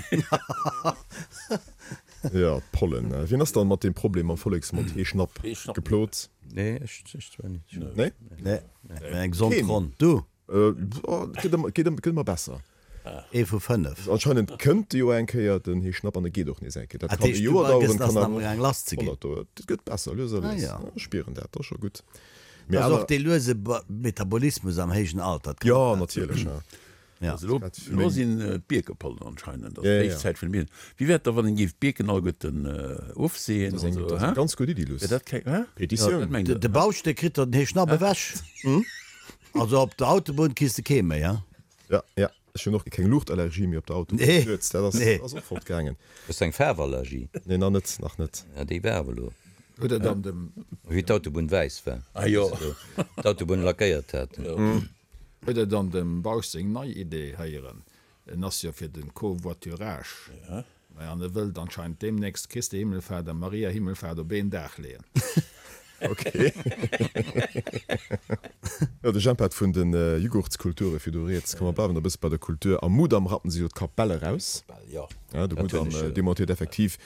Jo, d'Pollen. Wien ass dann mat deem Problem am Volleksmond Heeschnapp geplot? Nee, ech zwar net. Nee? Nee, eng gesond Ronn. Du? Gëtt ëmmer, gëtt ëmmer besser. Ee vu 5. Anscheinend kënnt de jo eng Kéier den Heeschnapp an e geet och nees eng Kéier. Dat kann e Joer daueren, kann awer och 100 daueren. Et gëtt besser, lues a lues. Ech spieren dat, dat ass scho gutt. Mee awer. Dat ass och dee luese Metabolismus am héijen Alter. Jo, natierlech. Also elo, elo sinn d'Bierkepollen anscheinend, ass d'héich Zäit vun de Bierken. Wéi wär et da, wann een géif d'Bierken alleguerten ofseeën? Dat ass eng, dat ass eng ganz gutt Iddi, Luss. Wär dat keng, hä? Petitioun. De Bauscht, dee kritt der den Heeschnapp ewech. Also op der Autobunn kriss de kee méi, hein? Ja, ja. Ech hunn och keng Luuchtallergie méi op der Autobunn. Nee, Nuets, dat ass, nee. ass och fortgaangen. Hues de eng Faarwallergie? Nee, nach net, nach net. Ja, déi war awer elo. Huet der dann dem. Wéi d'Autobunn wäiss war. Ah jo. Wéi se do d'Autobunn lackéiert haten. Huet der dann dem Bausch seng nei Idee héieren? En ass jo fir den Covoiturage. Maja, an e wëllt anscheinend deemnächst Christi Himmelfahrt a Maria Himmelfahrt op een Dag leeën. Ok. Jo, de Jemp hat vun de Jughurtskulture virdu rieds. Komm, mer bleiwen e bësse bei der Kultur. Am Mudam rappen se jo d'Kapell eraus. Jo. De Mudam demontéiert effektiv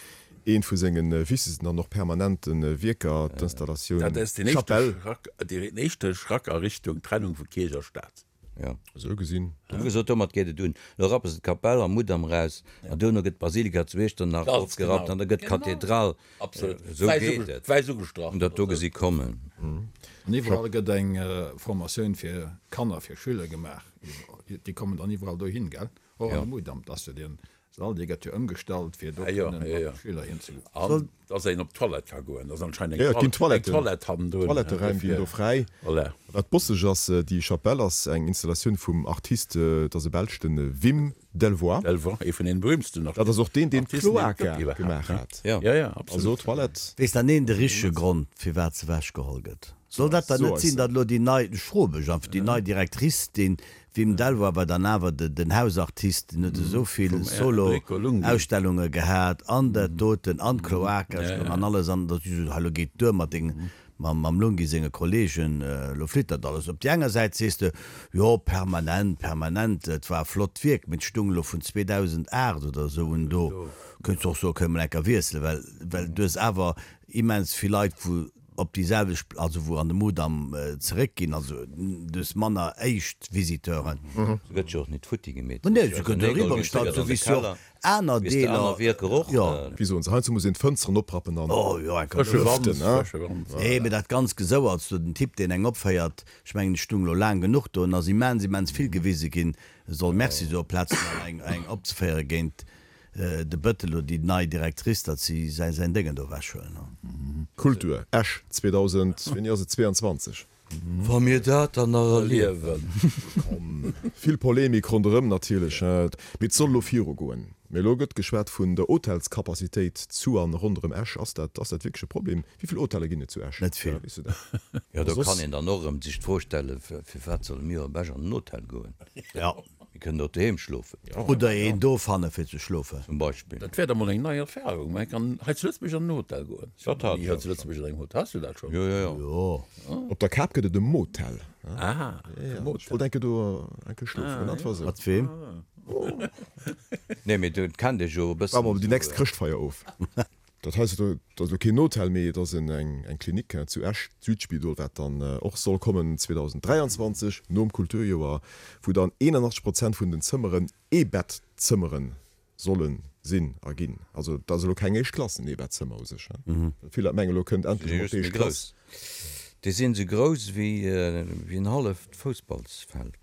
eent vu senge wichtegsten an och permanente Wierker, d'Installatioun Dat ass deen éischte Schrack, deen éischte Schrack a Richtung Trennung vu Kierch a Staat. Jo. Esou gesinn. Hu gesot, domat geet et un. Elo rappe se d'Kapell am Mudam eraus, an duerno gëtt d'Basilika zu Iechternach ofgerappt an da gëtt d'Kathedral. Absolut. Esou geet et. Wäiss ugestrach. Hunn dat do gesi kommen. An iwwerall gëtt eng Formatioun fir Kanner, fir Schüler gemaach. Déi kommen dann iwwerall dohin, gell? Och an de Mudam. Dat ass jo deen Sall, dee gëtt jo ëmgestallt, fir do kënnen mat de Schüler hinzegoen. An dass een op d'Toilette ka goen. Dass anscheinend eng eng Toilette hannendrun. Toiletteräim ginn do fräi. Voilà. Wat bosseg ass, déi Chapelle ass eng Installatioun vum Artist, et ass e Belsch, de Wim Delvoye. Delvoye, ee vun den berühmtsten Artisten. Dat ass och deen, deen d'Cloaca gemaach hat. Jo, jo, absolut. Also Toilette. Weess dann een de richtege Grond, firwat se ewechgeholl gëtt? Soll dat dann net sinn, datt elo déi nei, ech froe mech einfach, déi nei Directrice, dee Wim Delvoye war dann awer den Hausartist, deen huet esou vill Solo-Ausstellunge gehat an dat doten an d'Cloaca an alles an datt si sot, hei elo geet duer mat dengem, mam Lunghi senge Kollegen, elo flitt dat alles. Op déi enger Säit sees de, jo permanent, permanent, et war e flott Wierk, mee et stung elo vun 2008 oder esou un do, könns de och soen, kënne mer enker wiesselen, well, well du hues awer immens vill Leit wou op déi selwecht, also wou an de Mudam zeréckginn, also du hues manner éischt Visiteuren. Se gëtt jo och nit futti gemeet. Nee, se gëtt eriwwer gestallt, esou wéi s jo och aner Deeler. Jo. Wéi soen se, heiansdo muss een d'Fënsteren oprappen an Oh jo, eng Frësche Wand, frësche Wand. Nee, mee dat ganz Gesouerts do, den Typ deen eng opféiert, ech mengen ech stung elo laang genuch do, en ass immens, immens vill gewise ginn, e soll Merci soe plaz fir eng eng opzeféiere géint De Bëttel oder déi nei Directrice, datt si säin säin Déngen do ewechhuelen. Kultur, Esch 2000, wéini ass et, 22? Wa mir dat dann nach erliewen. Komm, vill Polemik ronderëm natierlech, mee et soll elo viru goen. Mee elo gëtt geschwat vun der Hotelscapacitéit zu an ronderëm Esch. Ass dat, ass dat wierklech e Problem? Wéi vill Hotelle ginn et zu Esch? Net vill. Weess du dat? Jo, do kann een dann och erëm sech d'Fro stellen, Firwat solle mir op Esch an den Hotel goen? Ja. Mir kënnen och doheem schlofen. Oder een do fanne fir ze schlofen. Zum Beispill. Dat wär da mol eng nei Erfahrung. Mä kann hei zu Lëtzebuerg an den Hotel goen. Ech war Dat hat ni ech hei och zu Lëtzebuerg an engem Hotel. Has du dat schonn? Jo, jo, jo. Jo. Op der Kap gëtt et e Motel. Ah, e Motel. Ech wollt enke do enke schlofen. Dat war esou. Mat weem? Nee, mee do kennt ee jo e bëssen. Waarde mer déi nächst Chrëschtfeier of. Dat hei ass elo keen Hotel, mee et ass eng Klinik zu Esch, d'Südspidol, wat dann och soll kommen 2023, nom Kulturjoer, wou dann 81 Prozent vun den Zëmmeren Eebettzëmmere solle sinn a ginn. Also dat ass elo keng éischt Klass, en Eebettzëmmer u sech. Vill Leit mengen, elo kënnt endlech emol d'éischt Klass. Déi sinn esou grouss wéi en halleft Foussballsfeld.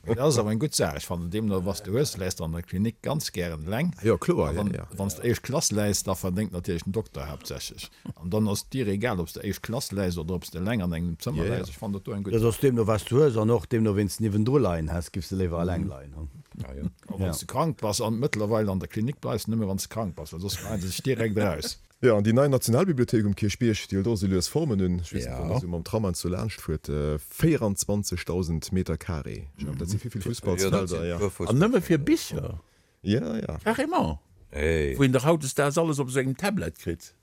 Dat ass awer eng gutt Saach. Ech fannen, deemno was de hues, läis de an der Klinik ganz gären eleng. Jo, kloer, jo, jo. Wann s de éischt Klass läis, da verdéngt natierlech den Dokter haaptsächlech. An dann ass et dir egal, ob s de éischt Klass läis oder ob s de eleng an engem Zëmmer läis. Ech fannen dat do eng gutt Dat Saach. ass deemno was du hues an och deemno ween s de niewendru leien häss, giffs de léiwer eleng leien, hu? A wann s de krank bass, an mëttlerweil an der Klinik bleifs de nëmme wann s de krank bass, well soss geheien se dech direkt eraus. Jo, an déi nei Nationalbibliothéik um Kierchbierg, déi hëlt och esou lues Formen un. Ech weess net, wann Der esou mam Tram heiansdo laanscht fuert, 24.000 Meter carré, ech mengen, dat si vill, vill Fussballsfelder, jo. An nëmme fir Bicher? Jo, jo. Carrément? Wou een dach hautdesdaags alles op esou engem Tablet kritt.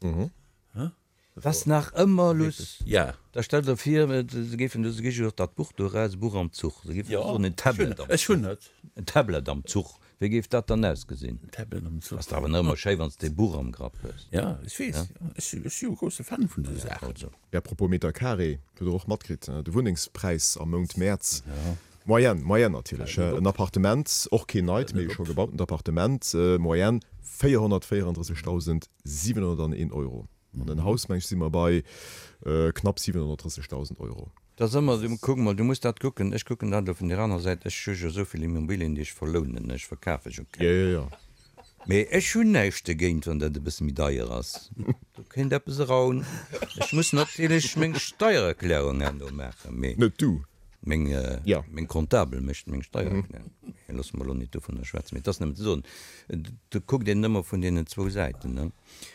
Et ass nach ëmmer luss. Ja. Da stell der vir, se géifen do, se gi jo och dat Buch do eraus, e Buch am Zuch. Se géifen soen, en Tablet am Zuch. Ech hunn et. En Tablet am Zuch. Wéi géif dat dann ausgesinn? Tablet am Zuch. Ass dach awer nach ëmmer schéi, wann s de e Buch am Grapp hues. Ja, ech weess. Ech si jo e grousse Fan vun esou Saachen. Also. À propos Meter carré, hutt Der och matkritt, de Wunnengspräis am Mount Mäerz, Moyenne, Moyenne natierlech, en Appartement, och keen neit, mee e scho gebautent Appartement, Moyenne 434.701 Euro. An en Haus, meng ech, si mer bei knapp 730.000 Euro. Dat ass ëmmer, du, kuck mol, du muss dat kucken, ech kucken dat elo vun där anerer Säit, ech hu jo esou vill Immobilien, déi ech verlounen, ech verkafe jo keng. Jo, jo, jo. Mee ech hunn näischt dogéint, wann dat e bësse méi deier ass. Do kéint eppes eraun. Ech muss natierlech meng Steiererklärung herno maachen, mee. Net du. Meng, meng Comptabel mécht meng Steiererklärung. Mee loosse mer elo net dovunner schwätzen. Mee et ass nëmmen ze soen, do kuckt een ëmmer vun deenen zwou Säiten, ne.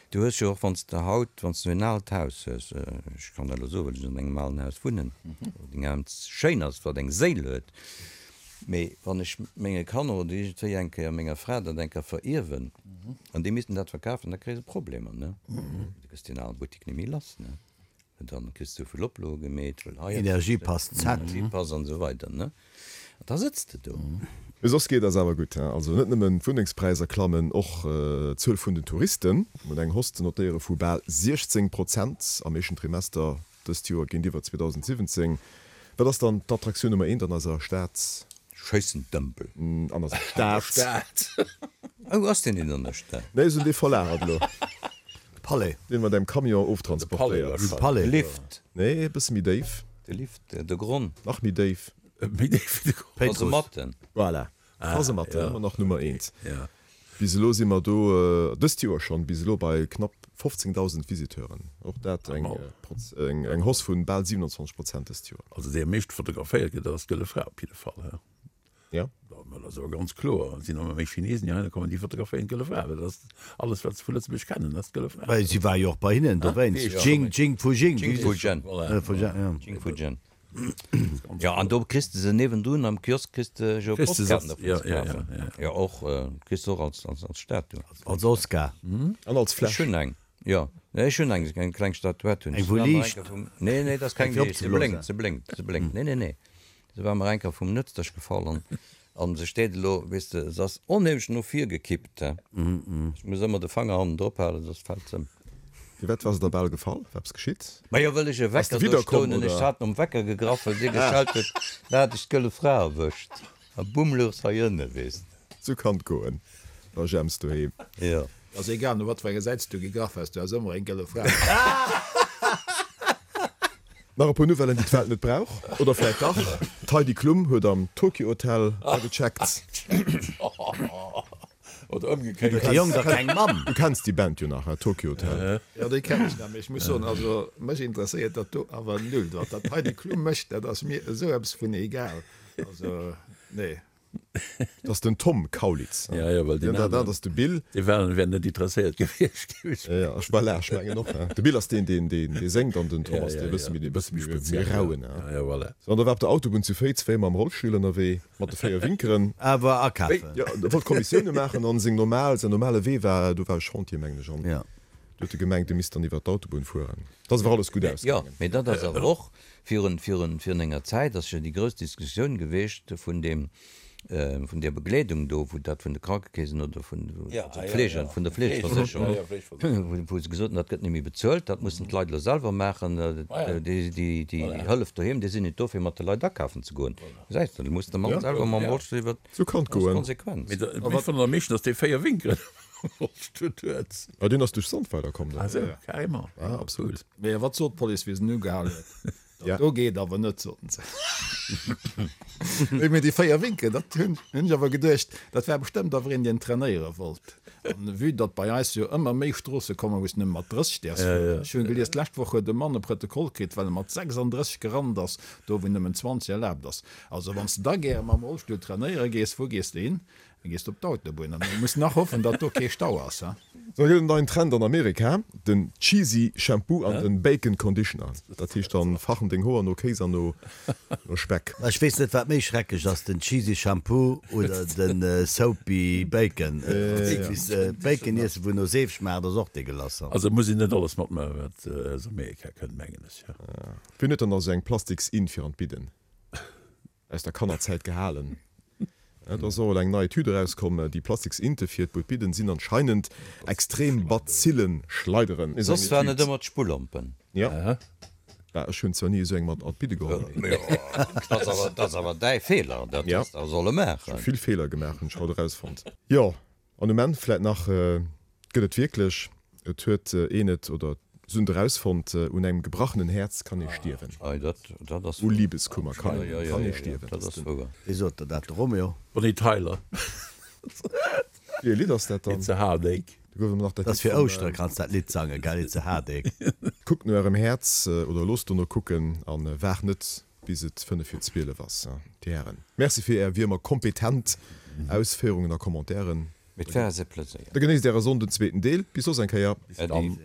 Du hues jo och, wann s de haut, wann s du en aalt Haus hues, ech kann dat elo soen, well ech an engem alen Haus wunnen, wat immens schéin ass, wat eng Séil huet, mee wann ech menge Kanner oder iergendwéi eng Kéier menger Fra dat eng Kéier verierwen an déi missten dat verkafen, da kréie se Problemer, ne? Du kriss deen ale Buttek net méi lass, ne? Dann kriss de souvill Oploe gemeet, well hei Energiepass Z. Energiepass an esou weider, ne? An da sëtz de do. Mee soss geet eis awer gutt, he? Also net nëmmen d'Wunnengspräisser klammen, och d'Zuel vun den Touristen. Mir hunn eng Hausse ze notéiere vu bal 16 Prozent am éischten Trimester dëst Joer géintiwwer 2017. Wat ass dann d'Attraktioun Nummer eent an eiser Stad? Schéissendëmpel. An eiser Stad. Oh, ass deen net an der Stad? Nee, se hunn dee verlagert elo. Palais. Deen mat engem Camion oftransportéiert. De Palais. De Lift. Nee, e bësse méi déif. De Lift, de Gronn. Nach méi déif. Méi déif wéi de Gronn. Kasematten. Voilà, Kasematten, ëmmer nach Nummer eent. Bis elo si mer do, dëst Joer schonn, bis elo bei knapp 15.000 Visiteuren. Och dat eng eng Hausse vu bal 27 Prozent dëst Joer. Also déi am meeschte fotograféiert gëtt, dat ass d'Gëlle Fra op jidde Fall. Ja. Dat ass awer ganz kloer. Et sinn ëmmer méi Chinesen, déi heihinner kommen, déi fotograféieren d'Gëlle Fra, well dat ass alles, wat se vu Lëtzebuerg kennen, dat ass d'Gëlle Fra. Well si war jo och bei hinnen dowéinst. Jing, Jing Fu Jing. Jing Fu Zhen. Voilà. Fu Zhen, ja. Jing Fu Zhen. Jo, an do kriss de se niewendrun am Kiosk kriss de jo Postkaarten dervun ze kafen. Jo, och, kriss de och als, als, als Statue. Als Oscar. An als Ech Fläsch. hunn eng, jo. Nee, ech hunn eng, eng kleng Statuett hunn ech. Eng wou liicht. Nee, nee, dat ass keng Eng fir liicht. Se opzeblosen. blénkt, se blénkt, se blénkt. Nee, nee, nee. Se war mer eng Kéier vum Nëtzdesch gefall an an se steet elo, weess de, se ass onheemlech no vir gekippt, he. Ech muss ëmmer de Fanger hannen drop halen, soss fält se ëm. Firwat war se der bal gefall? War eppes geschitt? Majo, wëll ech e Ass de Wecker do widderkomm, stoen hunn. Ech oder? hat nom Wecker gegraff, well dee geschellt huet, da hat ech d'gëlle Fra erwëscht a bumm louch se hei ënne, weess de. Sou kann et goen. War Jemps doheem. Jo. Ass egal no wat fir enger Säit s du gegraff has, du has ëmmer eng gëlle Fra. Nach e puer Nouvellen, déi d'Welt net brauch, oder vläit dach, D'Heidi Klum huet am Tokio Hotel agecheckt. Oder ëmgekéiert. Huet de Jong da keng Mamm? Du kenns déi Band jo nach, he, Tokio Hotel. Jo, déi kennen ech nach, mee ech muss soen, also mech interesséiert dat do awer null. Wat dat Heidi Klum mécht, dat ass mir esou eppes vun egal. Also, nee. Dat ass den Tom Kaulitz. Ja, ja, well deen Dat aneren, ass de Bill. dee war, wär net interesséiert gewiescht, géif ech Ja, ja, ech, voilà, ech mengen och. De Bill ass deen, deen, deen, dee séngt an den Tom Ja, ass ja, dee bësse ja, méi, dee bësse méi méi speziell, ja. rauen. Ja, ja, voilà. An da war op der Autobunn zu Féiz wéi mam Rollstull ënnerwee, mat de 4 Winkeren. Awer akafen. Ja, e wollt Kommissioune maachen an seng normal, säin normale Wee war, do war e Chantier, mengen ech, an Ja. do huet e gemengt, e misst dann iwwer d'Autobunn fueren. Dat ass awer alles gutt Jo, ausgaangen. mee dat ass awer och, Virun, virun, virun enger Zäit ass jo déi grouss Diskussioun geweecht vun deem. vun där Begleedung do, wou dat vun de Krankekeesen oder vun Fleege, vun der Fleegeversécherung, wou se gesot hunn, dat gëtt net méi bezuelt, dat mussen d'Leit elo selwer maachen, déi Hëllef doheem, déi sinn net do fir mat de Leit akafen ze goen. Gesäis de, da muss de Mann selwer mam Rollstull iwwer d'Konsequenz. Mee ech fannen am meeschten, datt dee 4 Winkelen am Rollstull huet. Ah, deen ass duerch Sandweiler komm dann. Ah sou, carrément. Ah, absolut. Mee wat sot d'Police, wéi se en ugehal huet? Dat do geet awer net, soten se. Mee déi 4 Winken, dat hunn ech awer geduecht, dat war bestëmmt awer een, deen trainéiere wollt. An vue datt bei eis jo ëmmer méi Stroosse kommen, wou s de nëmme mat 30 däerfs fueren. Ech hunn gelies, d'lescht Woch huet e Mann e Protokoll kritt, well e mat 36 gerannt ass, do wou nëmmen 20 erlaabt ass. Also wann s de da gäre mam Rollstull trainéiere gees, wou gees de hin? Da gees de op d'Autobunn an du muss nach hoffen, datt do kee Stau ass, ha? Sou gëtt en neien Trend an Amerika, den Cheesy Shampoo an den Bacon Conditioner. Dat heescht dann fachen deng Hoer no Kéis an no Speck. Ech weess net wat méi schrecklech ass, den Cheesy Shampoo oder den Soapy Bacon. Bacon iessen wou no Seef schmaacht ass och degueulasse. Also muss een net alles matmaachen wat aus Amerika kënnt mengen ech. Wien huet dann nach sou eng plastiks Inn fir an d'Bidden? Aus der Kannerzäit gehalen. Et ass och elo eng nei Etüd erauskomm, déi plastiks Inte fir d'Budbidden sinn anscheinend extrem Bazillen-Schleideren. Soss waren et ëmmer d'Spullompen. Jo. Bah, ech hunn zwar ni esou eng mat an d'Bidde geholl, mee. Dat ass awer däi Feeler, dat häss de awer solle maachen. Ech hu vill Feeler gemaach, hunn ech haut erausfonnt. Jo, An um Enn vläit nach, Gëtt et wierklech, et huet een et oder se hunn et erausfonnt, un engem gebrachenen Häerz kann ee stierwen. U Liebeskummer kann ee stierwen. Wee sot der dat? De Romeo? Bonnie Tyler. Wéi e Lidd ass dat dann? It's a heartache. Do gouf ëmmer nach dat Dat ass Lidd fir vum. Ouschtere kanns dat Lidd sangen, gell? It's a heartache. Kuckt no ärem Häerz oder loosst dono kucken a waart net bis et 5 vir 12 ass. Dir Hären, Merci fir Är wéi ëmmer kompetent Ausféierungen a Commentairen. Et war eis e Pleséier. Da genéisst Äre Sonnden zweeten Deel. Bis soss eng Kéier. Äddi.